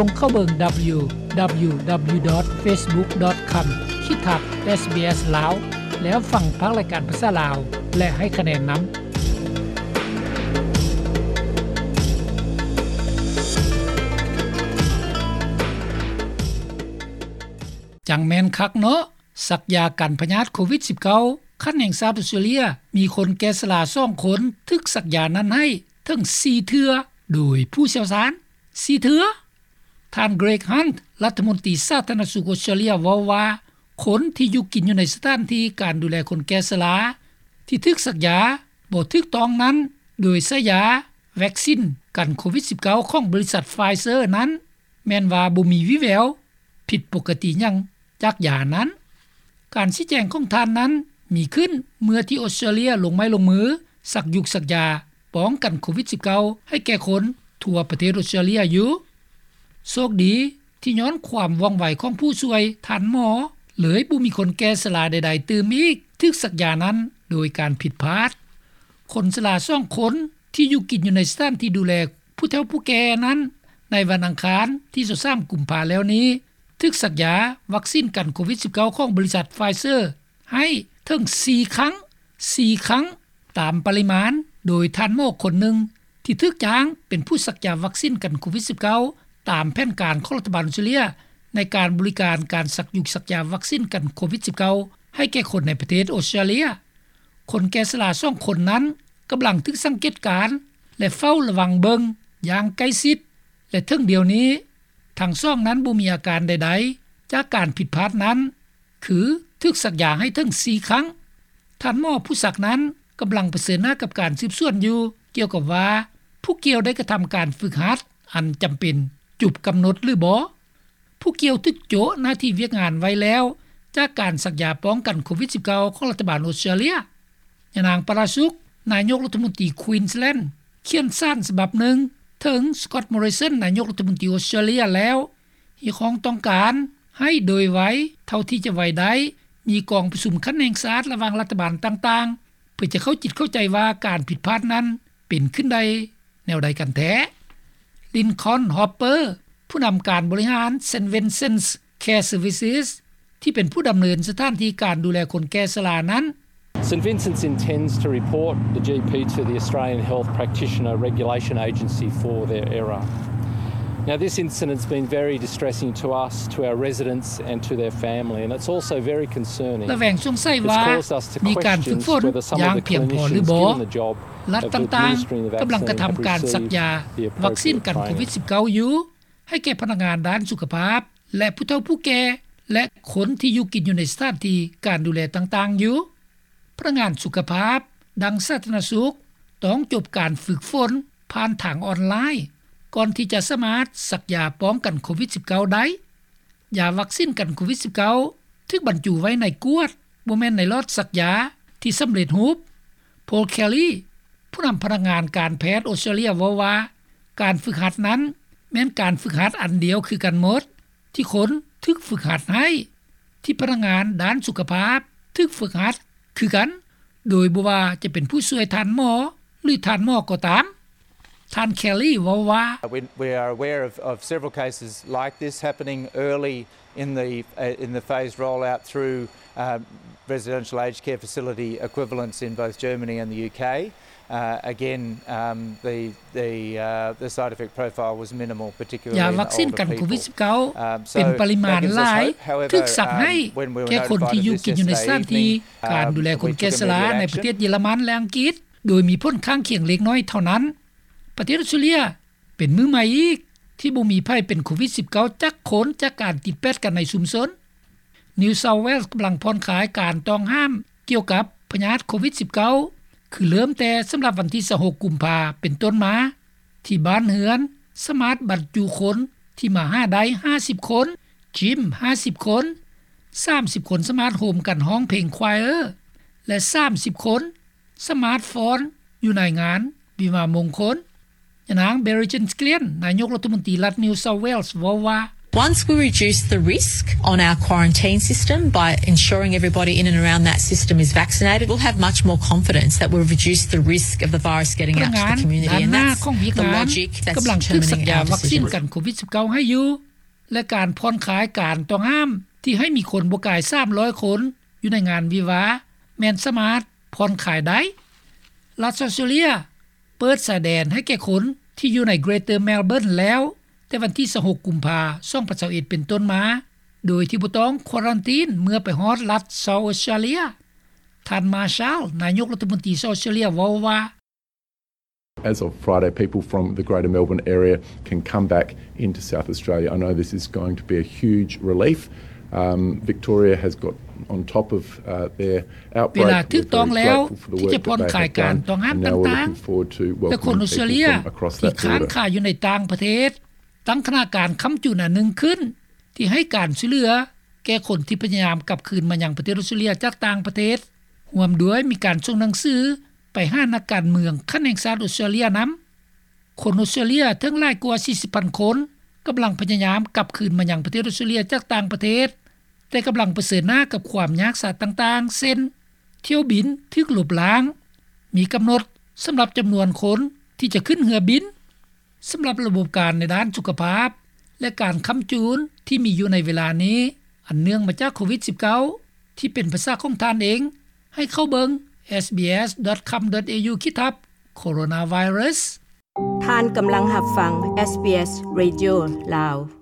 ສົ່ງເຂົ້າເບິ່ງ www.facebook.com/sbs ລາວ ແລ້ວຟັງພາກລາຍການພາສາລາວ ແລະ ໃຫ້ຄະແນນນຳ. ຈັ່ງແມ່ນຄັກເນາະ, ສັກຢາກັນພະຍາດໂຄວິດ-19 ຂັ້ນແຫ່ງຊາດອອສເຕຣເລຍ ມີຄົນແກ່ຊະລາສອງຄົນຖືກສັກຢານັ້ນໃຫ້ເຖິງສີ່ເທື່ອ ໂດຍຜູ້ຊ່ຽວຊານສີ່ເທື່ອ. ທ່ານ Greg Hunt ລັດຖະມົນຕີສາທາລະນະສຸກອອສເຕຣເລຍ ເວົ້າວ່າ ຄົນທີ່ຢູ່ກິນຢູ່ໃນສະຖານທີ່ການດູແລຄົນແກ່ຊະລາ ທີ່ຖືກສັກຢາບໍ່ຖືກຕ້ອງນັ້ນ ໂດຍໃຊ້ຢາວັກຊິນກັນໂຄວິດ-19 ຂອງບໍລິສັດ Pfizer ນັ້ນ ແມ່ນວ່າບໍ່ມີວີ່ແວວຜິດປົກກະຕິຫຍັງຈາກຢານັ້ນ. ການຊີ້ແຈງຂອງທ່ານນັ້ນມີຂຶ້ນເມື່ອທີ່ອອສເຕຣເລຍລົງໄມ້ລົງມືສັກຢຸກສັກຢາປ້ອງກັນໂຄວິດ-19 ໃຫ້ແກ່ຄົນທົ່ວປະເທດອອສເຕຣເລຍຢູ່. ໂຊກດີທີ່ຍ້ອນຄວາມວ່ອງໄວຂອງຜູ້ຊ່ວຍທ່ານໝໍ ເລີຍບໍ່ມີຄົນແກ່ຊະລາໃດໆຕື່ມອີກຖືກສັກຢານັ້ນໂດຍການຜິດພາດ. ຄົນຊະລາສອງຄົນທີ່ຢູ່ກິນຢູ່ໃນສະຖານທີ່ດູແລຜູ້ເຖົ້າຜູ້ແກ່ນັ້ນ ໃນວັນອັງຄານທີຊາວສາມ ກຸມພາແລ້ວນີ້ ຖືກສັກຢາວັກຊິນກັນໂຄວິດ-19 ຂອງບໍລິສັດ Pfizer ໃຫ້ເຖິງສີ່ຄັ້ງ, ສີ່ຄັ້ງຕາມປະລິມານ ໂດຍທ່ານໝໍຄົນໜຶ່ງທີ່ຖືກຈ້າງເປັນຜູ້ສັກຢາວັກຊິນກັນໂຄວິດ-19 ຕາມແຜນການຂອງລັດຖະບານອອສເຕຣເລຍ ໃນການບໍລິການການສັກຢຸກສັກຢາວັກຊິນກັນໂຄວິດ-19 ໃຫ້ແກ່ຄົນໃນປະເທດອອສເຕຣເລຍ. ຄົນແກ່ຊະລາສອງຄົນນັ້ນກຳລັງຖືກສັງເກດການ ແລະ ເຝົ້າລະວັງເບິ່ງຢ່າງໃກ້ຊິດ ແລະ ເຖິງດຽວນີ້ ທັງສອງນັ້ນບໍ່ມີອາການໃດໆຈາກການຜິດພາດນັ້ນ ຄືຖືກສັກຢາໃຫ້ເຖິງສີ່ຄັ້ງ. ທ່ານໝໍຜູ້ສັກນັ້ນກຳລັງປະເຊີນໜ້າກັບການສືບສວນຢູ່ ກ່ຽວກັບວ່າຜູ້ກ່ຽວໄດ້ກະທຳການຝຶກຫັດອັນຈຳເປັນຈົບກຳນົດຫຼືບໍ່. ຜູ້ກ່ຽວຖືກໂຈະໜ້າທີ່ວຽກງານໄວ້ແລ້ວ ຈາກການສັກຢາປ້ອງກັນໂຄວິດ-19 ຂອງລັດຖະບານອອສເຕຣເລຍ. ຍານາງ ປາຣາສຸກ ນາຍົກລັດຖະມົນຕີ Queensland ຂຽນສານສະບັບໜຶ່ງເຖິງ Scott Morrison ນາຍົກລັດຖະມົນຕີອອສເຕຣເລຍແລ້ວ ຮຽກຮ້ອງຕ້ອງການໃຫ້ໂດຍໄວເທົ່າທີ່ຈະໄວໄດ້ ມີກອງປະຊຸມຂັ້ນແຫ່ງຊາດລະຫວ່າງລັດຖະບານຕ່າງໆ ເພື່ອຈະເຂົ້າຈິດເຂົ້າໃຈວ່າການຜິດພາດນັ້ນເປັນຂຶ້ນໄດ້ແນວໃດກັນແທ້. Lincoln Hopper ຜູ້ນຳການບໍລິຫານ St Vincent's Care Services ທີ່ເປັນຜູ້ດຳເນີນສະຖານທີ່ການດູແລຄົນແກ່ຊະລານັ້ນ. St Vincent's intends to report the GP to the Australian Health Practitioner Regulation Agency for their error. Now, this incident's been very distressing to us, to our residents and to their family, and it's also very concerning. ລະແວງສົງໄສວ່າມີການຝຶກຝົນຢ່າງພຽງພໍຫຼືບໍ່. ລັດຕ່າງໆກຳລັງກະທຳການສັກຢາວັກຊິນກັນໂຄວິດ-19 ຢູ່ ໃຫ້ແກ່ພະນັກງານດ້ານສຸຂະພາບ ແລະ ຜູ້ເຖົ້າຜູ້ແກ່ ແລະ ຄົນທີ່ຢູ່ກິນຢູ່ໃນສະຖານທີ່ການດູແລຕ່າງໆຢູ່. ພະນັກງານສຸຂະພາບ ດັ່ງສາທາລະນະສຸກ ຕ້ອງຈົບການຝຶກຝົນຜ່ານທາງອອນລາຍ ກ່ອນທີ່ຈະສາມາດສັກຢາປ້ອງກັນໂຄວິດ-19 ໄດ້. ຢາວັກຊິນກັນໂຄວິດ-19 ຖືກບັນຈຸໄວ້ໃນກວດ, ບໍ່ແມ່ນໃນຫຼອດສັກຢາທີ່ສຳເລັດຮູບ. Paul Kelly ຜູ້ນຳພະນັກງານການແພດອອສເຕຣເລຍເວົ້າວ່າ ການຝຶກຫັດນັ້ນແມ່ນການຝຶກຫັດອັນດຽວຄືກັນໝົດ ທີ່ຄົນຖືກຝຶກຫັດໃຫ້, ທີ່ພະນັກງານດ້ານສຸຂະພາບຖືກຝຶກຫັດຄືກັນ, ໂດຍບໍ່ວ່າຈະເປັນຜູ້ຊ່ວຍທ່ານໝໍ ຫຼື ທ່ານໝໍກໍຕາມ. ທ່ານ Kelly ເວົ້າວ່າ We, we are aware of, of several cases like this happening early in the, uh, in the phased rollout through, uh, residential aged care facility equivalents in both Germany and the UK. Uh, again, um, the, the, uh, the side effect profile was minimal, particularly in older people. ຢາວັກຊິນກັນໂຄວິດ-19 ເປັນປະລິມານຫຼາຍ ຖືກສັກໃຫ້ແກ່ຄົນທີ່ຢູ່ກິນຢູ່ໃນສະຖານທີ່ການດູແລຄົນແກ່ຊະລາໃນປະເທດເຢຍລະມັນ ແລະ ອັງກິດ ໂດຍມີຜົນຂ້າງຄຽງເລັກນ້ອຍເທົ່ານັ້ນ. ປະເທດອອສເຕຣເລຍ ເປັນມື້ໃໝ່ອີກທີ່ບໍ່ມີໃຜເປັນໂຄວິດ-19 ຈັກຄົນ ຈາກການຕິດແປດກັນໃນຊຸມຊົນ. New South Wales ກຳລັງຜ່ອນຄາຍການຕ້ອງຫ້າມກ່ຽວກັບພະຍາດໂຄວິດ-19 ຄືເລີ່ມແຕ່ສຳລັບວັນທີຊາວຫົກ ກຸມພາ ເປັນຕົ້ນມາ ທີ່ບ້ານເຮືອນສາມາດບັນຈຸຄົນທີ່ມາຫາໄດ້ຫ້າສິບຄົນ, ຈິມຫ້າສິບຄົນ, ສາມສິບຄົນສາມາດໂຮມກັນຮ້ອງເພງ choir ແລະ ສາມສິບຄົນ ສາມາດຟ້ອນຢູ່ໃນງານວິວາມງຄົນ. ຍານາງ Berejiklian ນາຍົກລັດຖະມົນຕີລັດ New South Wales ເວົ້າວ່າ Once we reduce the risk on our quarantine system by ensuring everybody in and around that system is vaccinated, we'll have much more confidence that we've reduced the risk of the virus getting out to the community. And that's the logic that's determining our decisions. ພະນັກງານດ້ານໜ້າຂອງວຽກງານກຳລັງຖືກສັນຍາວັກຊີນກັນໂຄວິດສິບເກົ້າໃຫ້ຢູ່ ແລະ ການຜ່ອນຄາຍການຕ້ອງຫ້າມທີ່ໃຫ້ມີຄົນບໍ່ກາຍສາມຮ້ອຍຄົນຢູ່ໃນງານວິວາ ແມ່ນສາມາດຜ່ອນຄາຍໄດ້. ລັດອອສເຕຣເລຍເປີດຊາຍແດນໃຫ້ແກ່ຄົນທີ່ຢູ່ໃນ Greater Melbourne ແລ້ວ ແຕ່ວັນທີຊາວຫົກ ກຸມພາ ສອງພັນຊາວເອັດ ເປັນຕົ້ນມາ ໂດຍທີ່ບໍ່ຕ້ອງຄວາຣັນຕີນເມື່ອໄປຮອດລັດ South Australia. ທ່ານ Marshall ນາຍົກລັດຖະມົນຕີ South Australia ເວົ້າວ່າ As of Friday, people from the Greater Melbourne area can come back into South Australia. I know this is going to be a huge relief. Um, Victoria has got on top of, uh, their outbreak. ເວລາຖືກຕ້ອງແລ້ວທີ່ຈະຜ່ອນຄາຍການຕ້ອງຫ້າມຕ່າງໆ ແລະ ຄົນອອສເຕຣເລຍທີ່ຄ້າງຄາຢູ່ໃນຕ່າງປະເທດ ຕັ້ງຄະນະການຄ້ຳຈູນອັນໜຶ່ງຂຶ້ນ ທີ່ໃຫ້ການຊ່ວຍເຫຼືອແກ່ຄົນທີ່ພະຍາຍາມກັບຄືນມາຍັງປະເທດອອສເຕຣເລຍຈາກຕ່າງປະເທດ ຮ່ວມດ້ວຍມີການສົ່ງໜັງສືໄປຫານັກການເມືອງຂັ້ນແຫ່ງຊາດອອສເຕຣເລຍນຳ. ຄົນອອສເຕຣເລຍເຖິງຫຼາຍກວ່າສີ່ສິບພັນຄົນ ກຳລັງພະຍາຍາມກັບຄືນມາຍັງປະເທດອອສເຕຣເລຍຈາກຕ່າງປະເທດ ແຕ່ກຳລັງປະເຊີນໜ້າກັບຄວາມຍາກສາຕ່າງໆ ເຊັ່ນ ຖ້ຽວບິນຖືກລົບລ້າງ, ມີກຳນົດສຳລັບຈຳນວນຄົນທີ່ຈະຂຶ້ນເຮືອບິນ. ສຳລັບລະບົບການໃນດ້ານສຸຂະພາບ ແລະ ການຄ້ຳຈູນທີ່ມີຢູ່ໃນເວລານີ້ ອັນເນື່ອງມາຈາກໂຄວິດສິບເກົ້າ ທີ່ເປັນປາສາຂອງທ່ານເອງ ໃຫ້ເຂົ້າເບິ່ງ SBS.com.au ຂີດທັບ Coronavirus. ທ່ານກຳລັງຮັບຟັງ SBS Radio ລາວ.